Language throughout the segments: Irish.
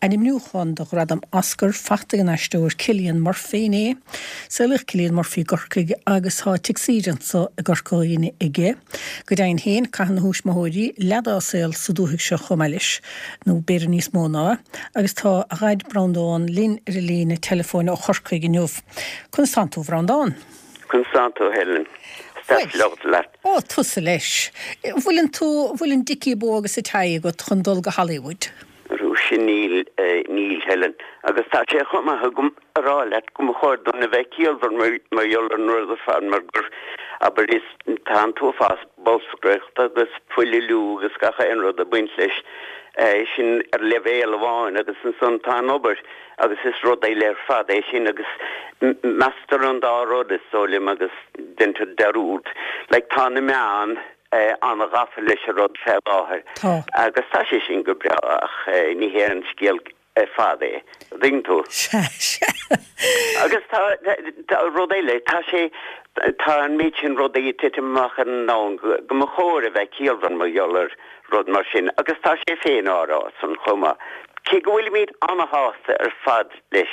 Ainmniúchán do Ghradam Oscar faighte ag an aisteoir Cillian Murphy inné. Saolaíodh Cillian Murphy i gCorcaigh agus tá tigh saoire anso i gCorca Dhuibhne aige. Go deimhin féin, caitheann a thuismitheoirí leath dá saol sa dúthaigh seo chomh maith leis, nó b'fhéidir níos mó ná, agus tá a dhaid Breandán linn ar an líne teileafóin ó Chorcaigh inniu. Conas tánn tú, a Bhreandáin? Conas tánn tú, a Helen? Is deas labhairt leat. Ó, tusa leis. Bhfuileann tú, bhfuil an dicky bow agus an tie agat chun dul go Hollywood? Arú sin níl, níl Helen. Agus tá sé chomh maith agam a rá leat go mba chóir dúinn a bheith ciallmhar mar gheall ar an rud ar fad mar gur, abair, is, tá an t-uafás bolscaireachta agus poibliú agus gach aon rud ag baint leis sin ar leibhéal amháin agus ansan tá an obair agus is rud eile ar fad é sin agus measctar an dá rud is dóigh liom agus deintear dearúd. Like tá na meáin an-ghafa leis an rud fé láthair agus tá sé sin go breá ach ní hé an scéal ar fad é, an dtuigeann tú? Sea, sea. Agus tá, tá rud eile, tá sé, tá an méid sin rudaí ag titim amach ar an domhan go, go mba chóir a bheith ciallmhar mar gheall ar rud mar sin agus tá sé féin á rá san chomh maith. Cé go bhfuilimid an-shásta ar fad leis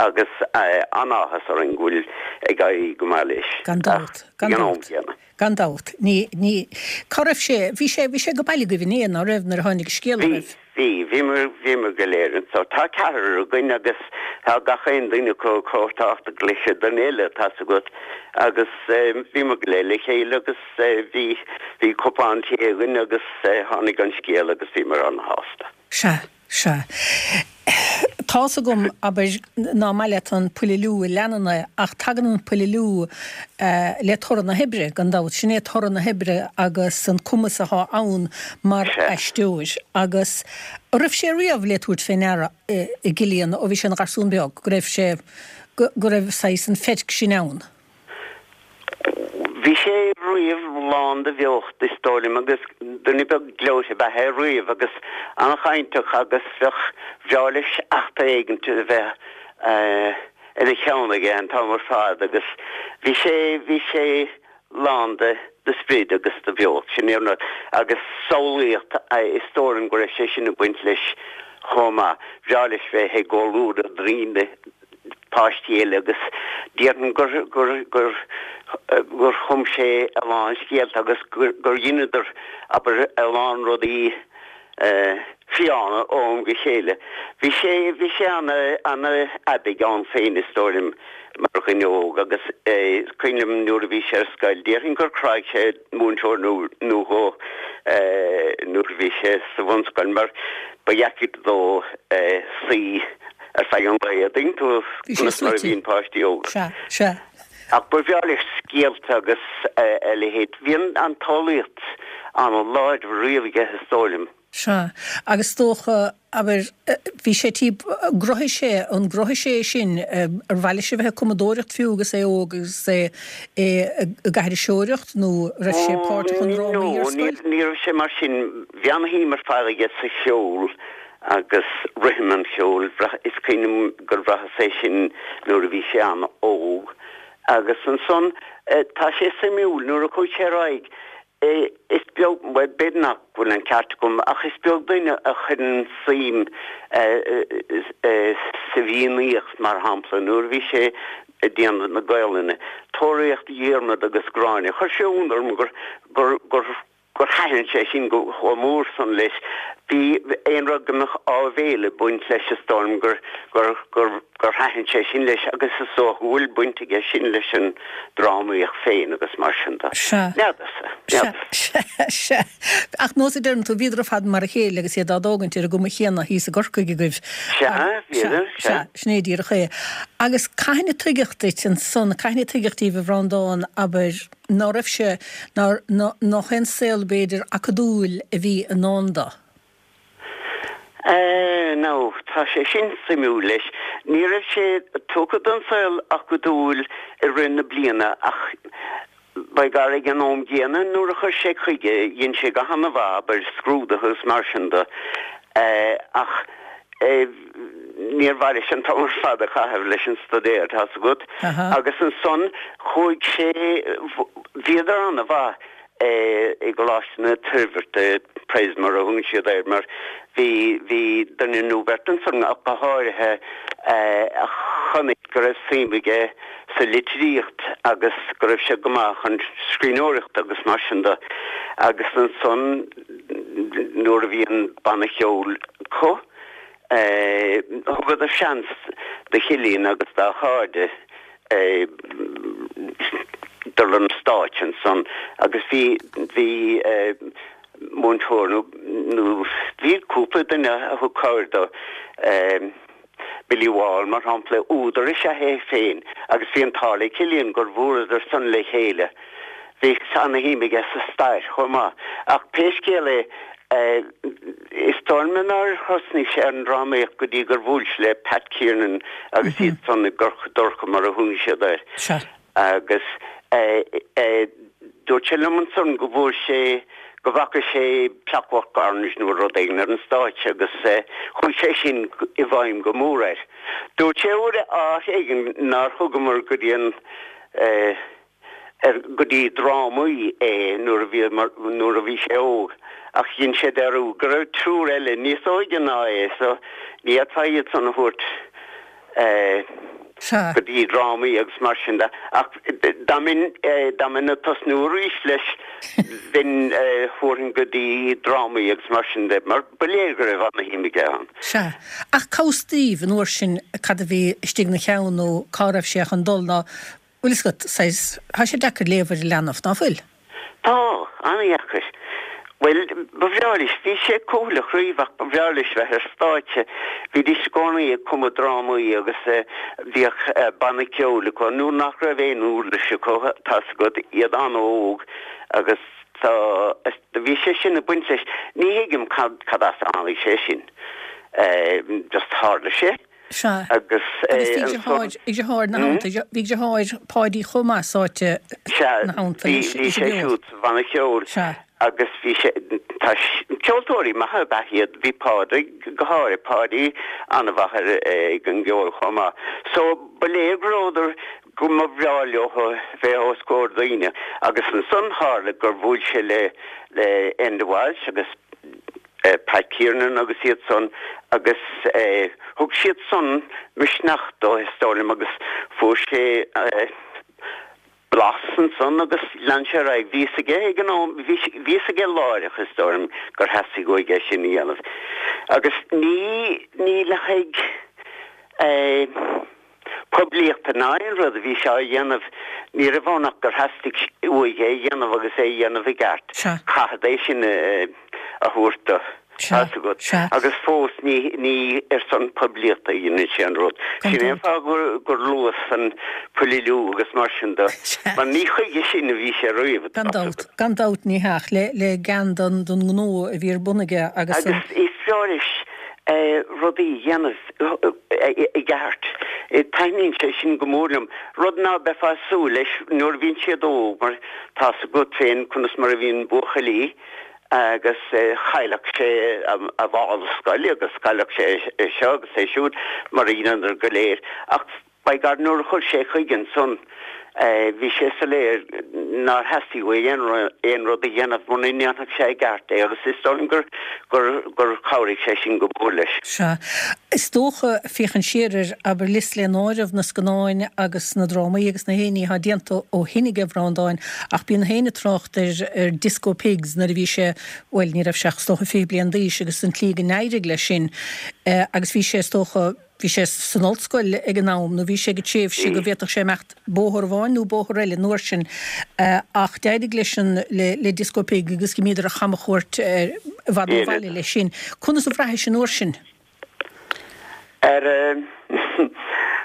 agus an-áthas orainn go bhfuil ag éirí go maith leis Gan dabht, gan ag an am dabht. céanna. Gan dabht. Ní, ní, cá raibh sé, bhí sé, bhí sé go baile agaibh inné, ná raibh, nuair a tháinig an scéala Bhí, oraibh? bhí, bhíomar, bhíomar go léir anso. Tá ceathrar againn agus tá gach aon duine acu chomh tábhachtach leis an duine eile, tá's agat. Agus bhíomar go léir le chéile agus bhí, bhí cupán tae againn agus tháinig an scéal agus bhíomar an-shásta. Sea. Sea. Tá's agam, abair, ná maith leat an poibiliú a leanann é, ach tagann an poibiliú le toradh na hoibre, gan dabht. Sin é toradh na hoibre agus an cumas athá ann mar aisteoir. Agus an raibh sé riamh le tabhairt fé ndeara i gCillian ó bhí sé ina gharsún beag, go raibh sé, go raibh saghas an pheirc sin ann? Bhí sé riamh lán de bheocht is dóigh liom agus duine beag gleoite ab ea é riamh agus an-chainteach agus bheadh, bhreá leis eachtra éigint a bheith ina cheann aige an t-am ar fad agus bhí sé, bhí sé lán de, de sprid agus de bheocht, sin é an rud. Agus samhlaíocht, is dóigh liom go raibh sé sin ag baint leis chomh maith. Bhreá leis bheith i gcomhluadar daoine páistí eile agus déarfainn gur, gur, gur, gur chum sé a lán scéalta agus gur, gur dheineadar, abair, a lán rudaí fiáine ó am go chéile. Bhí sé, bhí sé ana, ana-aibidh ann féin is dóigh liom mar dhuine óg agus is cuimhin liom nuair a bhí sé ar scoil, déarfainn gur chráigh sé múinteoir nó, nó dhó nuair a bhí sé sa bhunscoil mar ba dheacair dó suí ar feadh an lae, an dtuigeann tú Bhí sé conas mar a suite. bhíonn páistí óga. Sea, sea. Ach ba bhreá leis scéalta agus a leithéid. Bhí an tsamhlaíocht an-láidir riamh aige is dóigh liom. Sea. Agus is dócha, abair, bhí sé tí, gcruthaigh sé, an gcruthaigh sé é sin, ar mhaith leis a bheith ag cumadóireacht fiú agus é óg agus é ag aithriseoireacht nó raibh sé páirteach i ndrámaí ar No, scoil? ní raibh sé mar sin. Bhí an-shuim ar fad aige sa cheol agus rithim an cheoil. Is cuimhin liom gur bhraitheas é sin nuair a bhí sé an-óg. Agus ansan, tá sé suimiúil, nuair a chuaigh sé ar aghaidh, is beag, bhuel, b'fhéidir nach bhfuil an ceart agam, ach is beag duine a chuireann suim sa bhFiannaíocht, mar shampla, nuair a bhí sé ag déanamh na Gaolainne, Tóraíocht Dhiarmada agus Gráinne, chuir sé ionadh orm gur, gur, gur, gur thaitin sé sin go chomh mór san leis. Bhí aon rud go mbeadh áibhéil ag baint leis is dóigh liom gur, gur, gur, gur thaitin sé sin leis agus is dócha go bhfuil baint aige sin leis an drámaíocht féin agus mar sin de. Sea. N'fheadarsa. Sea, N'fheadarsa. sea, sea. Ach nós a deireann tú, bhíodar ar fad mar a chéile agus iad á dtógaint ar an gcuma chéanna thíos i gCorcaigh agaibh. Sea, bhíodar, sea. Sea, sin é díreach é. Agus cathain a tuigeadh duit ansan, cathain a tuigeadh daoibh a Bhreandáin, abair, ná raibh sé, ná, ná, nach aon saol, b'fhéidir, acadúil a bhí i ndán dó. Eh, now, tá sé sin suimiúil leis. Ní raibh sé tugtha don saol acadúil i rith na bliana ach by gar ag an am gcéanna nuair a chuir sé chuige, dhein sé go han-mhaith, abair, scrúduithe agus mar sin de. Eh, ach eh, níor mhaith leis an t-am ar fad a chaitheamh leis an staidéar, tá's agat. Agus ansan chuaigh sé, bhíodar an-mhaith. i gColáiste na Toirbhirte, Pres mar a thugann siad air, mar bhí, bhí duine nó beirt ansan ach go háirithe a chonaic go raibh suim aige sa litríocht agus go raibh sé go maith chun scríbhneoireachta agus mar sin de. Agus ansan nuair a bhí an banna ceoil acu, thugadar seans do Chillian agus dá chairde dul ar an stáitse ansan agus bhí, bhí múinteoir nó, nó bhí cúpla duine a thug cabhair dó, Billy Wall mar shampla, údar is ea é féin agus bhí an t-ádh le Cillian gur bhuaileadar san le chéile. Bhí ana-shuim aige sa stair chomh maith. Ach pé scéal é, is dóigh liom nár thosnaigh sé ar an drámaíocht go dtí gur bhuail sé le Pat Kiernan agus iad san i gCorca Dorcha mar a thugann siad air. Agus dúirt sé liom ansan go bhfuair sé, go bhfaca sé Clockwork Orange nó rud éigin ar an stáitse agus chuaigh sé sin i bhfeidhm go mór air. Dúirt sé uair áit éigin nár thugamar go dtí an ar go dtí drámaí é nuair a bhí nuair a bhí sé óg ach dhein sé dearúd go raibh triúr eile níos óige ná é so ní fhéadfá iad san a thabhairt Sea. go dtí drámaí agus mar sin de ach dá mbeinn dá mbeinn ag tosnú arís leis bheinn thabharfainn go dtí drámaí agus mar sin de mar ba léir go raibh ana-shuim aige ann. Sea. Ach cá bhfios daoibh an uair sin cad a bhí istigh 'na cheann nó cá raibh sé chun dul ná Bhfuil fhios agat, saghas, tá sé deacair léamh ar leanbh, ná fuil? Tá, an-dheacair. Bhuel, ba bhreá leis, bhí sé cúthaileach riamh ach ba bhreá leis bheith ar stáitse. Bhídís i gcónaí ag cumadh drámaí agus bhíodh banna ceoil acu, nuair nach raibh aon uirlis acu, tá's agat, iad an-óg agus tá, bhí sé sin ag baint leis. Ní thuigim cad, cad as a tháinig sé sin. Just tharla sé. Sea. Agus Agus bhí deartháir, ag deartháir ina theannta, bhí deartháir Páidí chomh maith sáite Sea, ina theannta bhí, bhí sé siúd sa bhanna ceoil. Sea. Agus bhí sé, tá, ceoltóirí maithe ab ea iad, bhí Pádraig go háirithe, Páidí an-mhaith ar, ag an gceol chomh maith. So, ba léir go rabhadar, go mba bhreá leo bheith os comhair daoine. Agus ansan tharla gur bhuail sé le, le Enda Walsh agus, Pat Kiernan agus iad san agus thug siad san misneach dó is dóigh liom agus fuair sé blas ansan agus lean sé ar aghaidh. Bhí fhios aige ag an am, bhí fhios aige láithreach is dóigh liom gur theastaigh uaidh é sin a dhéanamh agus ní, ní le haghaidh poiblíochta ná aon rud a bhí sé á dhéanamh. Ní raibh ann ach gur theastaigh uaidh é a dhéanamh agus é a dhéanamh i gceart. Caithfead é sin a thabhairt do. Tá's agat. Agus fós ní ní ar son poiblíochta a dhéanann sé an rud. Sin é an fáth gur gur luas an Puliliú agus mar sin de. Mar ní chuige sin a bhí sé riamh. Gan dabht. Gan dabht ní hea. Le le gean don don ngnó a bhí ar bun aige agus an. Agus is fearr leis rudaí a dhéanamh i gceart. Taitníonn sé sin go mór liom. Rud ná beifeá ag súil leis nuair a bhíonn siad óg mar tá's agat féin conas mar a bhíonn buachaillí agus chaillfeadh sé a mhála scoile agus chaillfeadh sé é seo agus é siúd mar a dheineadar go léir. Ach By God, nuair a chuir sé chuige ansan, bhí sé soiléir nár theastaigh uaidh aon rud a dhéanamh muna ndéanfadh sé i gceart é agus is dóigh liom gur, gur, gur chabhraigh sé sin go mór leis. Sea. Is dócha, féachaint siar air, abair, liosta le n-áireamh na scannáin agus na drámaí agus na haon ní atá déanta ó shin aige Bhreandáin, ach bíonn féin ag trácht ar, ar Disco Pigs nuair a bhí sé, bhuel, ní raibh sé ach is dócha 20 bliain d'aois agus an tslí go n-éirigh leis sin agus bhí sé is dócha, Bhí sé san ollscoil ag an am, nó bhí sé ag an tréimhse go bhféadfadh sé imeacht bóthar amháin nó bóthar eile an uair sin. Ach d'éirigh leis an, le Disco Pig agus d'imíodar ar chamchuairt i bhfad ó bhaile leis sin. Conas a bhraithis an uair sin? Ar,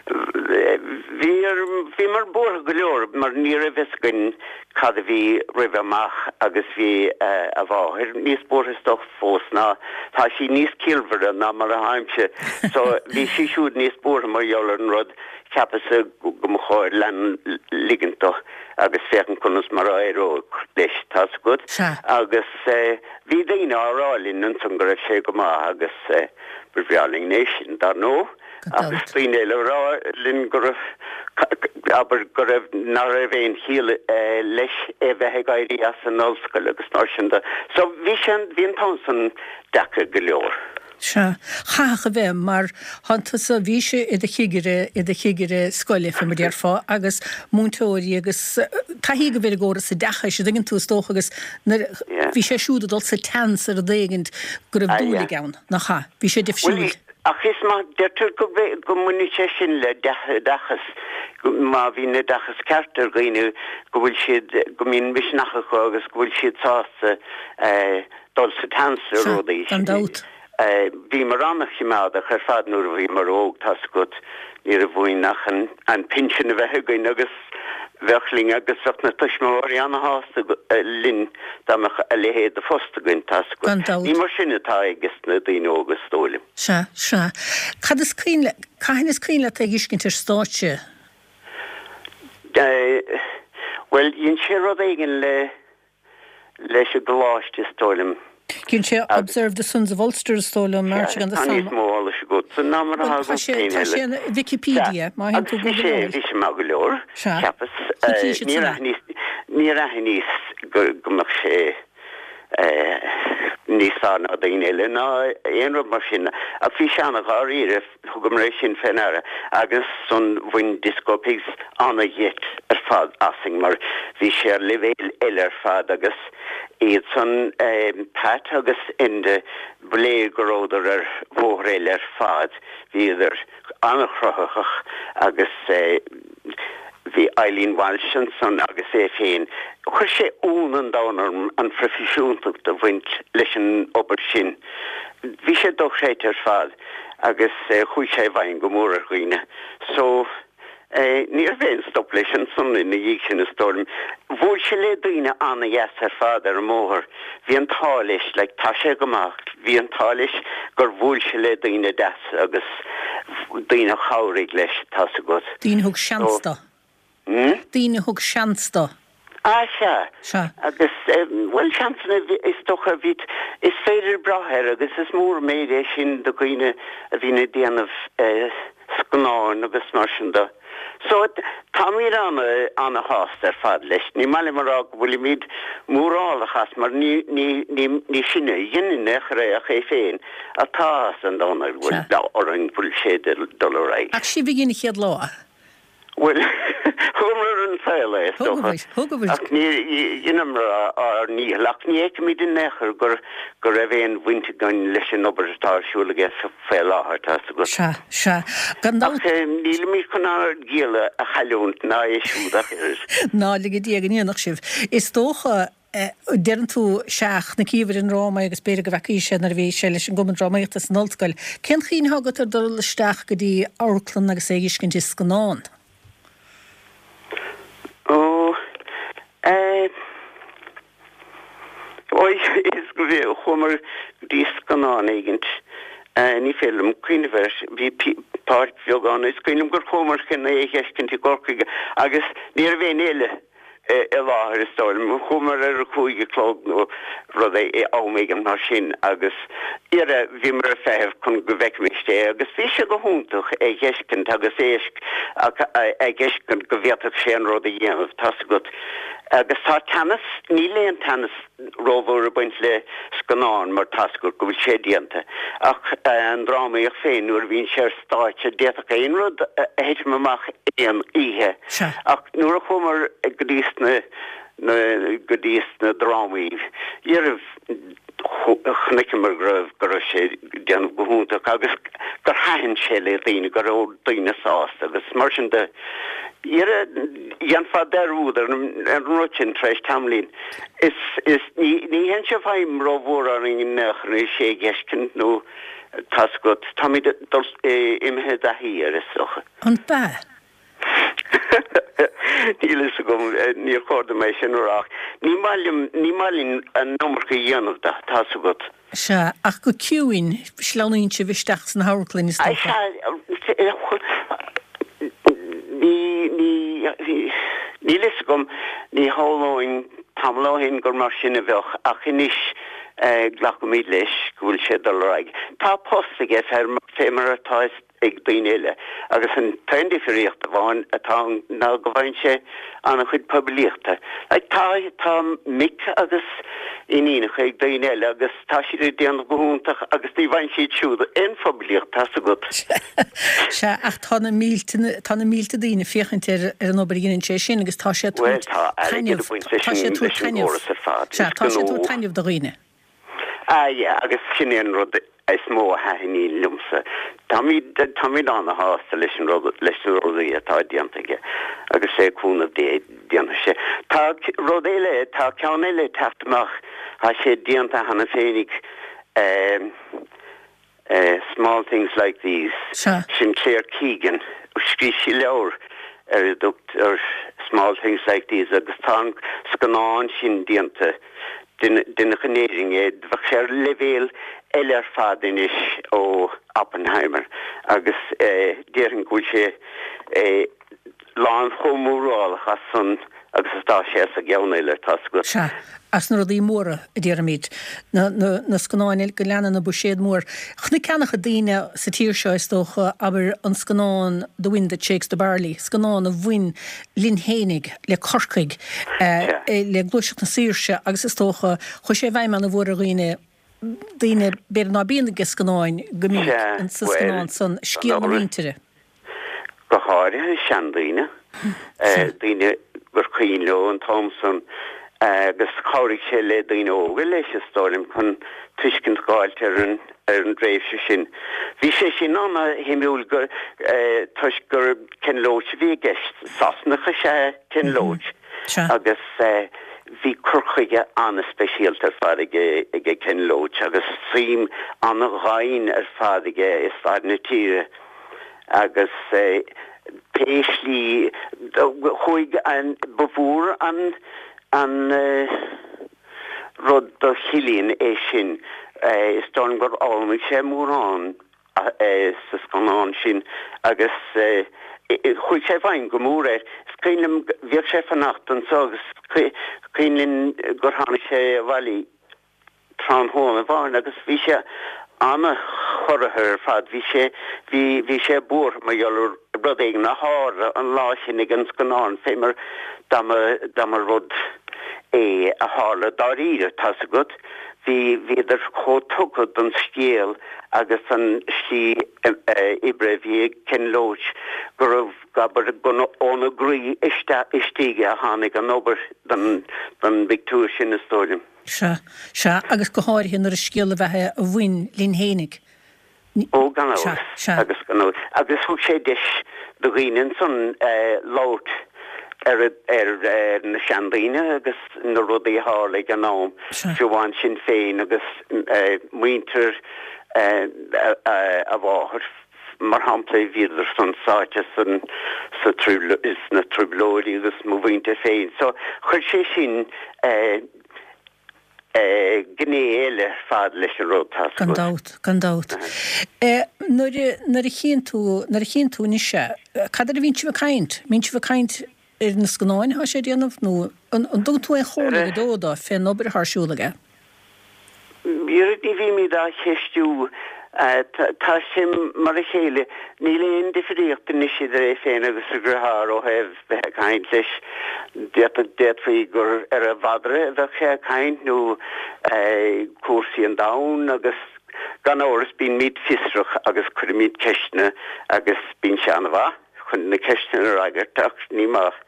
bhí, bhíomar buartha go leor mar ní raibh fhios againn cad a bhí roimhe amach agus bhí a mháthair níos buartha is dócha fós ná tá sí níos ciallmhaire ná mar a tháimse so bhí sí siúd níos buartha mar gheall ar an rud cheapas-sa go mba chóir lean ligint dó agus féachaint conas mar a éireodh leis tá's agat agus bhí daoine á rá linn ansan go raibh sé go maith agus ba bhreá linn é sin dar ndóigh agus daoine eile á rá linn go raibh. Abair go raibh, nach raibh aon chiall leis é bheith ag éirí as an ollscoil agus mar sin de. So bhí sé, bhí an t-am san deacair go leor. Sea. Chaithfeadh a bheith, mar thánn tusa, bhís i do chigire, i do chigire scoile, fé mar déarfá, agus múinteoirí agus taithí agaibh ar an gcóras oideachais, an dtuigeann tú, is dócha, agus nuair, bhí sé siúd ag dul sa tseans ar rud éigint go raibh Ah dúil yeah. aige ann, nach ea? Bhí sé Bhuel, difriúil. ach is maith, deirtear go, go mbaineann sé sin le dea-oideachas, má bhíonn oideachas ceart ar dhaoine, go bhfuil siad, go mbíonn misneach acu agus go bhfuil siad sásta eh, dul sa tseans ar Sea, rudaí. gan dabht. Bhíomar an-choimeádach ar fad nuair a bhíomar óg, tá's agat, ní raibh uainn ach an pinsean a bheith againn agus bheadh linn agus bheadh na tuismitheoirí an-shásta linn dá mbeadh a leithéid de phost againn, tá's agat. Gan dabht. Ní mar sin atá ages na daoine óga, is dóigh liom. Sea, sea. Cad is cuimhin le, cathain is cuimhin leat é a dh'fheiscint ar stáitse? Bhuel, dhein sé rud éigin le. leis an gcoláiste is dóigh liom. Dhein sé Observe the Sons of Ulster is dóigh liom, Sea, Marching on the tá níos Somme. mó eolais agatsa ná mar atá Bhuel, tá agam sé, féin tá eile. sé in Wikipedia, Sea, má théann agus tú bhí sé, Googleáil. bhí sé maith go leor, Sea, cheapas. coicís Níor ansan. aithníos, níor aithníos go, go mbeadh sé níos fearr ná daoine eile ná aon rud mar sin, ach bhí sé an-dháiríre. Thugamar é sin fé ndeara agus ansan bhain Disco Pigs ana-gheit ar fad asainn mar bhí sé ar leibhéal eile ar fad agus iad san, Pat agus Enda, ba léir go rabhadar ar bhóthar eile ar fad, bhíodar an-chruthaitheach agus bhí Eileen Walsh ansan agus é féin. Chuir sé ionadh an domhain orm an phroifisiúntacht a bhaint leis an obair sin. Bhí sé dochreidte ar fad. agus chuaigh sé i bhfeidhm go mór ar dhaoine. So, ní raibh aon stop leis ansan ina dhiaidh sin, is dóigh liom. Bhuail sé le daoine an-dheas ar fad ar an mbóthar. Bhí an t-ádh leis, like, tá sé go maith, bhí an t-ádh leis gur bhuail sé le daoine deasa agus daoine a chabhraigh leis, tá's agat. Daoine a thug seans So, do. Hmm? Daoine a thug seans do. Ah, sea. Sea. Agus, bhuel, seansanna, is dócha, bhí, is féidir brath air agus is mór an méid é sin do dhaoine a bhíonn ag déanamh scannáin agus mar sin de. So, táimid ana-, ana-shásta ar fad leis. Ní maith liom a rá go bhfuilimid mórálach as mar ní, ní, ní, ní sinne a dhein in aon chor é ach é féin. Ach tá áthas an domhain air go bhfuil, orainn go bhfuil sé ag dul ar aghaidh. Ach sibh a dhein an chéad lá. Bhuel, thugamar ar an saol é, is dócha. Thugaibh, thugaibh. Ach ní dheineamar ár ndícheall. Ach ní fheicimid in aon chor gur, go raibh aon bhaint againn leis an obair atá ar siúl aige faoi láthair, tá's agat. Sea, sea. Gan Ach dabht. nílimid chun ár gciall a chailliúint ná é siúd ach oiread. Ná lige Dia go ndéanfadh sibh. Is dócha. Deireann tú, sea, chonaicíobhair an dráma agus b'fhéidir go bhfeacaís é nuair a bhí sé leis an gCumann Drámaíochta san ollscoil. Cén chuimhne atá agat ar dul isteach go dtí amharclann agus é a dh'fheiscint i scannán? Ó, eh, ó, is go bhí, chuamar go dtí scannán éigint, eh, ní féidir liom cuimhneamh air, bhí páirc bheag ann, is cuimhin liom gur chuamar chun é a dh'fheiscint i gCorcaigh agus ní raibh éinne eile. i láthair is dóigh liom. Chuamar ar a cúig a chlog nó rud am éigin mar sin agus dhera bhíomar ag feitheamh chun go bhfeicfimis é agus bhí sé go hiontach é dh'fheiscint agus é a dh'fheiscint go bhféadfadh sé an rud a dhéanamh, tá's agat. Agus tá teannas, níl aon teannas rómhór ag baint le scannán mar tá's agat go bhfuil sé déanta ach an drámaíocht féin nuair a bhíonn sé ar stáitse d'fhéadfadh aon rud a thitim amach aon oíche ach nuair a chuamar go dtí sna na go dtí sna drámaí dhera chonaiceamar go raibh go raibh sé ag déanamh go hiontach agus gur thaitin sé le daoine go raibh daoine sásta agus mar sin de. Dhera dhéanfá dearúd ar an rud sin tar éis tamaillín. Is, is, ní, ní théann sé i bhfeidhm rómhór orainn in aon chor anois é a dh'fheiscint nó tá's agat, táimid dul, imithe i dtaithí air is dócha. An b'ea? Níl fhios agam, níor chóir dom é sin a rá ach ní maith liom, ní maith linn an iomarca a dhéanamh de, tá's agat. Sea, ach go ciúin, sleamhnaíonn sibh isteach sna hamharclainn, is dócha. Sea, ní, ní, níl fhios agam, ní shamhlóinn tamall ó shin gur mar sin a bheadh, ach anois. Glacaimid leis go bhfuil sé ag dul ar aghaidh. Tá post aige fé mar atá ag daoine eile agus an t-aon difríocht amháin atá ann ná go bhfaigheann sé an-chuid poiblíochta. Like tá tá mic agus iníonacha ag daoine eile agus tá siad ag déanamh go hiontach agus ní bhfaigheann siad siúd aon phoiblíocht, tá's agat. Sea, ach tá na mílte tá na mílte daoine ag féachaint ar ar an obair a dheineann sé sin agus tá sé ag Bhuel tabhairt tá airgead ag taitneamh baint leis tá sé an ag tabhairt leis an taitneamh gcóras ar fad. Sea, Is tá sé ag gnó. tabhairt taitneamh do dhaoine. Ah yeah, agus sin é an rud is mó a thaitníonn liomsa. Táimid, táimid ana-shásta leis an rud, leis na rudaí atá déanta aige agus le cúnamh Dé déanfaidh sé. Tá rud eile, tá ceann eile ag teacht amach, tá sé déanta cheana féinig, eh, eh, Small Things Like These, Sea. sin Claire Keegan, scríobh sí leabhar ar a dtugtar Small Things Like These agus tá an scannán sin déanta. Deineadh in Éirinn é. Bheadh sé ar leibhéal eile ar fad anois ó Oppenheimer agus déarfainn go bhfuil sé lán chomh mórálach as san agus atá sé as an gceann eile, tá's agat. Sea, as na rudaí móra, a déarfaimid. Na, na, na scannáin go leanann an buiséad mór. Chonaic an-chuid daoine sa tír seo, is dócha, abair, an scannán The Wind That Shakes the Barley, scannán a bhain linn fhéinig, le Corcaigh, le Gluaiseacht na Saoirse agus is dócha, chuaigh sé i bhfeidhm ana-mhór ar dhaoine, daoine b'fhéidir ná bíonn ag scannáin go minic, sa scannán san, scéal na muintire. Go háirithe seandaoine, daoine gur cuimhin leo an t-am san agus chabhraigh sé le daoine óga leis, is dóigh liom, chun tuiscint a dh'fháilt ar an ar an dtréimhse sin. Bhí sé sin ana-shuimiúil toisc gur Ken Loach a bhí i gceist. Sasanach is ea Ken Loach agus bhí cur chuige ana-speisialta ar fad aige Ken Loach agus suim ana-dhoimhin ar fad aige i stair na tíre agus pé slí chuaigh an, ba mhór an, an, rud do Chillian é sin. Is dóigh liom gur fhoghlaimigh sé mórán sa scannán sin agus chuaigh sé i bhfeidhm go mór air. Is cuimhin liom, bhíodh sé ag fanacht anseo agus is cuimhin linn gur tháinig sé abhaile tráthnóna amháin agus bhí sé ana-chorraithe ar fad. Bhí sé, bhí, bhí sé buartha mar gheall ar rud éigin a tharla an lá sin ag an scannán, fé mar dá mba, dá mba rud é a tharla dáiríre, tá's agat. Bhí, bhíodar chomh tugtha don scéal agus don slí oibre a bhí ag Ken Loach go raibh, abair, óna gcroí isteach istigh a tháinig an obair don, don bpictiúr sin, is dóigh liom. Sea, sea, agus go háirithe nuair is scéal ab ea é a bhain linn fhéinig. Ó, gan Sea, amhras, sea. agus gan amhras. Agus thug sé deis do dhaoine ansan labhairt ar, ar na seandaoine agus na rudaí a tharla ag an am, Sea. fiú amháin sinn féin agus muintir a mháthar, mar shampla, bhíodar san sáite san, sa, sna trioblóidí agus mo mhuintir féin. So, chuir sé sin gné eile ar fad leis an rud, tá's Gan agat. dabht, gan dabht. Nuair a, nuair a chíonn tú, nuair a chíonn tú anois é, cad air a bhíonn sibh ag caint? Mbíonn sibh ag caint ar na scannáin atá sé ag déanamh nó an, an dtugann tú aon chomhairle go deo dó fén obair atá ar siúl aige? Ní bhímid á cheistiú. Tá sé mar a chéile. Níl aon difríocht anois idir é féin agus a dheartháir ó thaobh bheith ag caint leis. D'fhéadfaí gur ar a mhadra a bheadh sé ag caint nó cúrsaí an domhain agus gan amhras bímid fiosrach agus cuirimid ceisteanna agus bíonn sé an-mhaith chun na ceisteanna a fhreagairt ach ní maith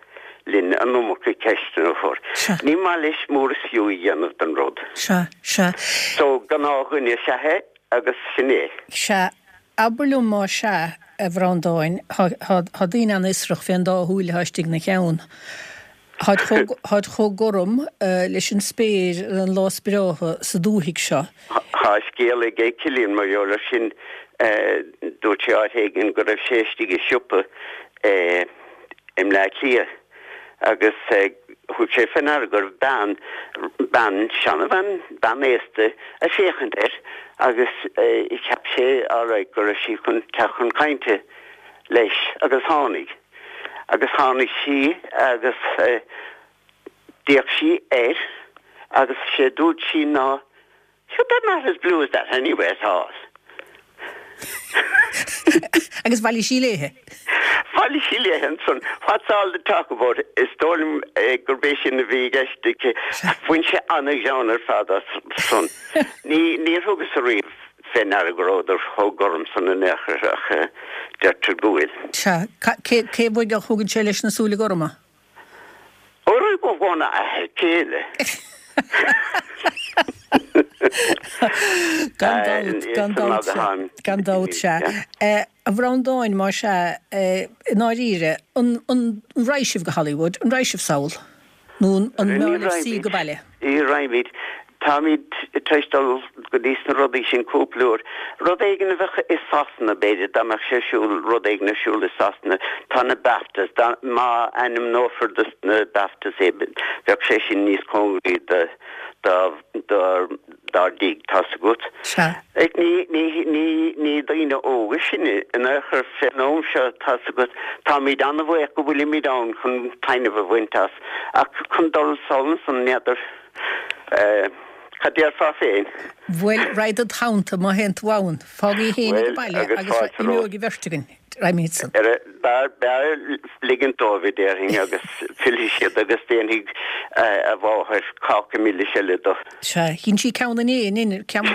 linn an iomarca ceisteanna a chur. Sea. Ní maith leis mór is fiú a dhéanamh den rud. Sea, sea. So, gnáthdhuine is ea é agus sin é. Sea. Abair liom más ea, a Bhreandáin, tá, tá, tá daoine an-fhiosrach fén dá shúil atá istigh ina cheann. Táid chomh, táid chomh gorm leis an spéir ar an lá is breátha sa dúthaigh seo. Tá scéal aige Cillian mar gheall air sin. Dúirt sé áit éigin go raibh sé istigh i siopa i mBleá Cliath agus thug sé fé ndeara go raibh bean, bean, seanabhean, bean aosta ag féachaint air agus cheap sé alright go raibh sí chun teacht chun cainte leis agus tháinig. Agus tháinig sí agus d'fhéach sí air agus sé dúirt sí ná. Should that not as blue as that anyway at all? Agus bhailigh sí léithe. Bhailigh sí léithe ansan. What's all the talk about? Is dóigh liom gurb é sin a bhí i gceist aici. Bhain sé an-ghreann ar fad as san. Ní, níor thugas ariamh fé ndeara go rabhadar chomh gorm san in aon chor ach deirtear go bhfuil. Sea. Cé, cé uaidh a thugann sé leis na súile gorma? Óra go bhfóna athair céile. Gan dabht, gan dabht, sea. Gan dabht, sea. A Bhreandáin, más ea, i ndáiríre, an raghaidh sibh go Hollywood? An raghaidh sibh sall? Nó an mb'fhearr libh suí go baile? Ní raghaimid. Táimid tar éis dul go dtí sna rudaí sin cúpla uair. Rud éigin a bheadh i Sasana, b'fhéidir, dá mbeadh sé ar siúl, rud éigin ar siúl i Sasana, tá na BAFTAs, dá, má ainmneofar dos na BAFTAs é, bheadh sé sin níos cóngaraí do, do, do, dár dtigh, tá's agat. Sea. Ach ní, ní, ní, ní daoine óga sinne in aon chor fén am seo, tá's agat. Táimid an-bhuíoch go bhfuilimid ann chun taitneamh a bhaint as, ach chun dul sall ansan, n'fheadar. Cad déarfá féin? Bhuel, raghad id theannta má théann tú ann. Fág í féin age baile Bhuel, agus agus fáilte imeoidh an bheirt againn. Raghaimid san. B'fhearr, b'fhearr ligint dóibh, a déarfainn, agus fillfidh siad agus déanfaidh a mháthair cáca milis eile do. Sea, dhein sí ceann inné, an ndein, ceann.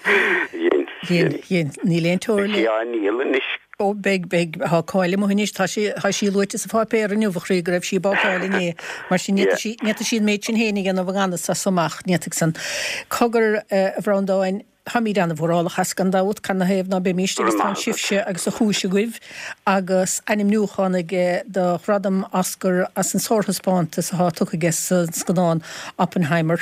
Dhein, dhein. Dhein, níl aon teora le. Beidh sí á ndíol anois. Ó, beidh, beidh, tá cáil amuigh anois, tá sí, tá sí luaite sa pháipéar inniu, a chroí, go raibh sí ag bácáil inné, mar sin ní fhéadfadh sí, ní fhéadfadh sí an méid sin féin a dhéanamh i ngan fhios as so amach, ní fhéadfadh san. Cogar, a Bhreandáin, táimid an-mhórálach as, gan dabht, cad 'na thaobh ná beimíst, Go agus raibh tá maith agat. sibhse agus an chúis agaibh, agus ainmniúchán aige do ghradam Oscar as an sárthaispeántas atá tugtha aige sa scannán Oppenheimer.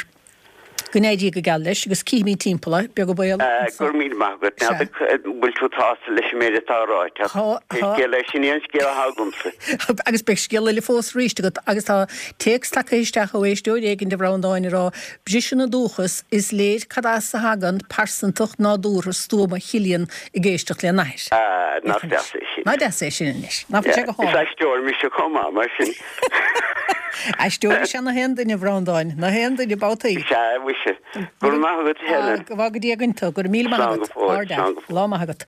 Go n-éirí go geal leis agus cífimid timpeall é, beag an baol anso. Go raibh míle maith agat. Sea. An bhfuil tú sásta leis an méid atá ráite ach Tá, pé tá. scéal é, sin é an scéal atá agamsa. Agus beidh scéal eile fós arís agat agus tá téacs tagtha isteach ó éisteoir éigin a Bhreandáin ag rá, briseann an dúchas, is léir cad as a thagann pearsantacht nádúrtha stuama Chillian ag éisteacht lena athair. Ah, nach deas é sin. Nach deas é sin anois. Nach bhfuil sé go Is hálainn. aisteoir mise chomh maith, mar sin. Aisteoir is ea na haon duine, a Bhreandáin, na haon duine, babhtaí. Is ea, mhuise. Go raibh maith agat, a Helen. Go bhfága Dia againn tú. Go raibh míle maith Slán go agat. fóill, Ard slán go fóill. Lá maith agat.